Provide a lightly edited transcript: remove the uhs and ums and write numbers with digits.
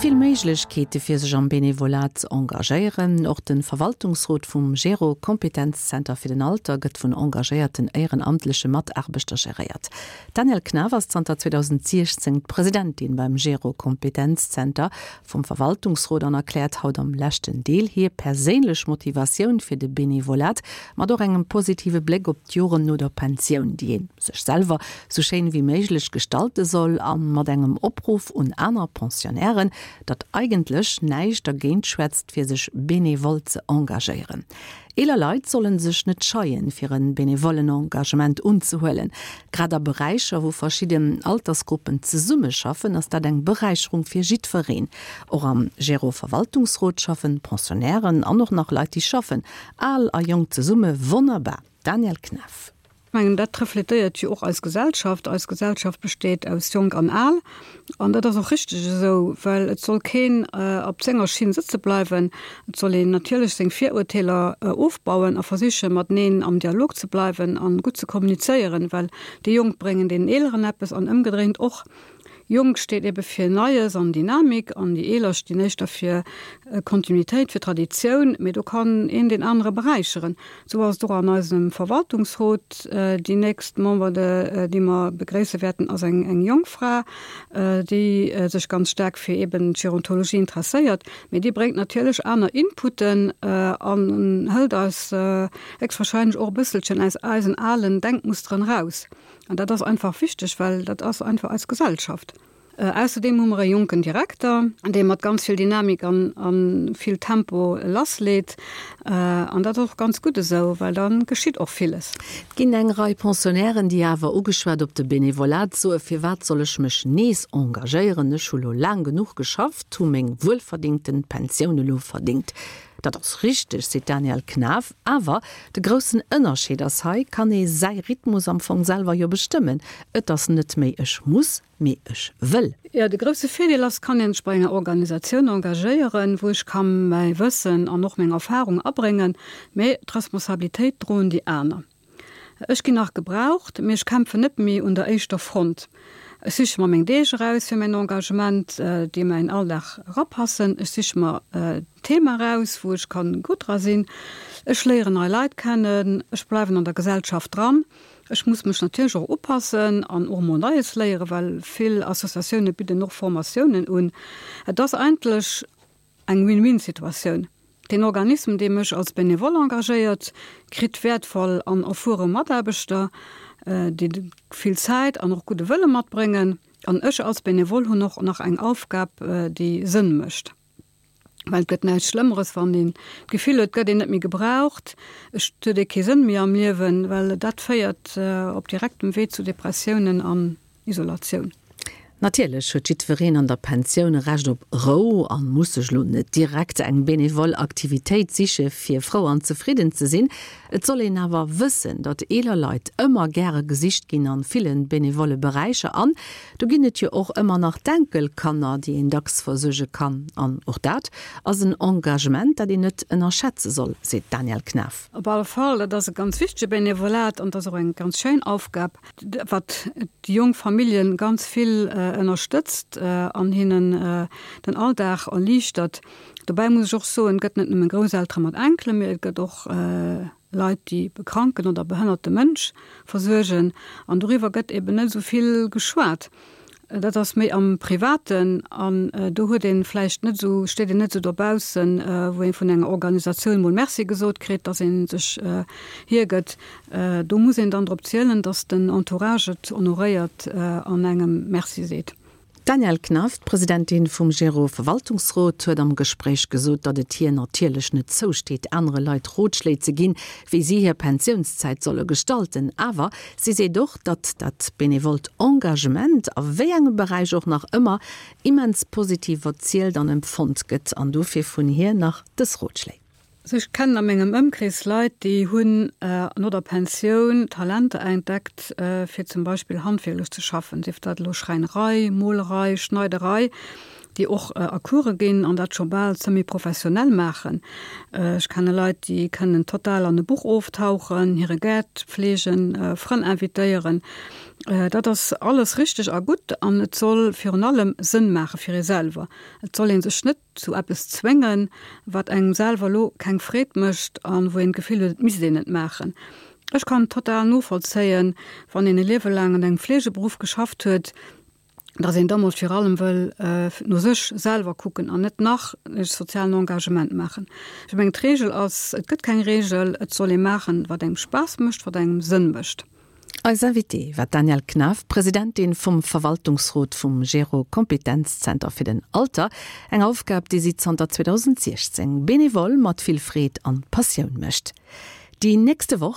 vill Méiglechkeete fir sech am Benevolat ze engagéieren. Och de Verwaltungsrot vum Gero Kompetenzzenter fir den Alter gëtt vun engagéierten éierenamtleche Mataarbechter geréiert. D'Danièle Knaff ass zanter 2016 d'Presidentin beim Gero Kompetenzzenter vum Verwaltungsrot an erkläert haut am leschten Deel hir perséinlech Motivatioun fir de Benevolat, mat och engem positive Bléck op d'Joren no der Pensioun, déi ee sech selwer sou schéin wéi méiglech gestalte soll, a mat engem Opruff un aner Pensionnairen, datt eigentlech näischt dergéint schwätzt, fir sech benevol ze engagéieren. Eeler Leit sollen sech net scheien, fir e benevollen Engagement unzehuelen. Grad a Beräicher, wou verschidden Altersgruppen zesummeschaffen, ass dat eng Beräicherung fir jiddwereen. Och am Gero-Verwaltungsrot schaffen Pensionnairen an och nach Leit, déi schaffen. Al a Jonk zesumme, wonnerbar! Danielle Knaff. Ech mengen, dat refletéiert jo och eis Gesellschaft. Eis Gesellschaft besteet aus Jonk an Al. An dat ass och richteg esou, well et soll keen op senger Schinn sëtze bleiwen. Et soll een natierlech seng Virurteeler ofbauen a versichen, mateneen am Dialog ze bleiwen a gutt ze kommunizéieren, well déi Jonk bréngen deenen Eeleren eppes an ëmgedréint och. Jonk steet ebe fir Neies an Dynamik an déi Eeler stinn éischter fir Kontinuitéit, fir Traditioun, mee do kann een deen anere beräicheren. Esou ass et och an eisem Verwaltungsrot. Déi nächst Member, déi mer begréisse wäerten, ass eng jonk Fra, déi sech ganz staark fir eben d'Gerontologie interesséiert, mee déi bréngt natierlech aner Inputen an hëlt eis héchstwahrscheinlech och e bësselchen aus eisen alen Denkmusteren eraus. An dat ass einfach wichteg, well dat ass einfach eis Gesellschaft. Ausserdeem hu mer e jonken Direkter, dee mat ganz vill Dynamik an a vill Tempo lassleet. An dat ass och ganz gutt esou, well da geschitt och villes. Et ginn eng Rei Pensionnairen, déi awer, ugeschwat op de Benevolat, soe Firwat soll ech mech nees engagéieren, ech hu lo laang genuch geschafft, hu meng wuelverdingten Pensioun elo verdingt. Dat ass richteg, seet d'Danièle Knaff. Awer de groussen Ënnerscheed ass, hei kann ee säi Rhythmus am Fong selwer jo bestëmmen. Et ass net méi ech muss, mee ech wëll. Jo, de grousse Virdeel ass, kann een sech bei enger Organisatioun engagéieren, wou ech ka mäi Wëssen an och meng Erfarung abréngen, mee d'Responsabilitéit droen déi aner. Ech ginn nach gebraucht, mee ech kämpfen net méi un der éischter Front. Ech siche mer meng Deeg eraus fir mäin Engagement, déi a mäin Alldag erapassen. Ech siche mer d'Thema eraus, wou ech kann gutt dra sinn. Ech léieren nei Leit kennen. Ech bleiwen an der Gesellschaft dran. Ech muss mech natierlech och upassen an och emol Neies léieren, well vill Associatioune bidden och Formatiounen un. Et ass eigentlech Eng Win-Win-Situatioun. Den Organisme, dee mech als Benevole engagéiert, kritt wäertvoll an erfuere Mataarbechter, déi vill Zäit an och gudde Wëlle matbréngen. An ech als Benevole hunn och nach eng Aufgab, déi Sënn mécht. Well et gëtt näischt Schlëmmeres, wann een d'Gefill huet, et gëtt een net méi gebraucht, et huet ee kee Sënn méi am Liewen, well dat féiert op direktem Wee zu Depressiounen an Isolatioun. Natierlech huet jiddwereen an der Pensioun e Recht op Rou an muss sech lo net direkt eng benevol Aktivitéit siche fir frou an zefridden ze sinn. Et soll een awer wëssen, datt eeler Leit ëmmer gäre gesicht ginn an villen benevolle Beräicher an do ginn et jo och ëmmer nach d'Enkelkanner, déi een dacks versuerge kann. An och dat ass en Engagement, dat een net ënnerschätze soll, seet d'Danièle Knaff. Op alle Fall, dat ass e ganz wichtege Benevolat an et ass och eng ganz schéin Aufgab. wat déi jonk Familljen ganz vill ënnerstëtzt an hinnen den Alldag erliichtert. Dobäi muss ech och soen, et gëtt net nëmme Grousseltere mat Enkelen, mee et gëtt och Leit, déi e kranken oder behënnerte Mënsch versuergen. An doriwwer gëtt eben net esou vill geschwat. Dat ass méi am Privaten an do huet ee vläicht net esou, steet een net esou dobaussen, wou ee vun enger Organisatioun mol Merci gesot kritt, datt ee sech hiergëtt. Do muss een dann drop zielen, datt den Entourage et honoréiert an engem Merci seet. D'Danièle Knaff, d'Presidentin vum Gero-Verwaltungsrot, huet am Gespréich gesot, datt et hir natierlech net zousteet, anere Leit Rotschléi ze ginn, wéi si hir Pensiounszäit solle gestalten. Awer si seet och, datt dat benevolt Engagement, a wéi engem Beräich och nach ëmmer, immens positiv erzielt an empfonnt gëtt. An dofir vun hir nach dës Rotschléi. Also ech kennen a mengem Ëmkrees Leit, déi hunn no der Pensioun Talenter entdeckt, fir zum Beispill handwierklech ze schaffen, sief dat elo Schräinerei, Molerei, Schneiderei, déi och a Course ginn an dat scho bal semi-professionell maachen. Ech kenne Leit, déi kënnen total an e Buch oftauchen, hire Gaart fleegen, Frënn invitéieren. Dat ass alles richteg a gutt an et soll virun allem Sënn maache fir ee selwer. Et soll ee sech net zu eppes zwéngen, wat engem selwer elo keng Freed mécht a wou een d'Gefill huet, et misst een et maachen. Ech kann total novollzéien, wann een e Liewe laang an engem Fleegeberuff geschafft huet, dass een da mol vir allem wëll no sech selwer kucken an net nach e sozialen Engagement maachen. Ech mengen, d'Reegel ass, et gëtt keng Reegel, et soll ee maachen, wat engem Spaass mécht, wat engem Sënn mécht. Eis Invitée war d'Danièle Knaff, Presidentin vum Verwaltungsrot vum Gero Kompetenzzenter fir den Alter, eng Aufgab, déi si zanter 2016 benevole mat vill Freed an Passioun mécht. Déi nächste Woch.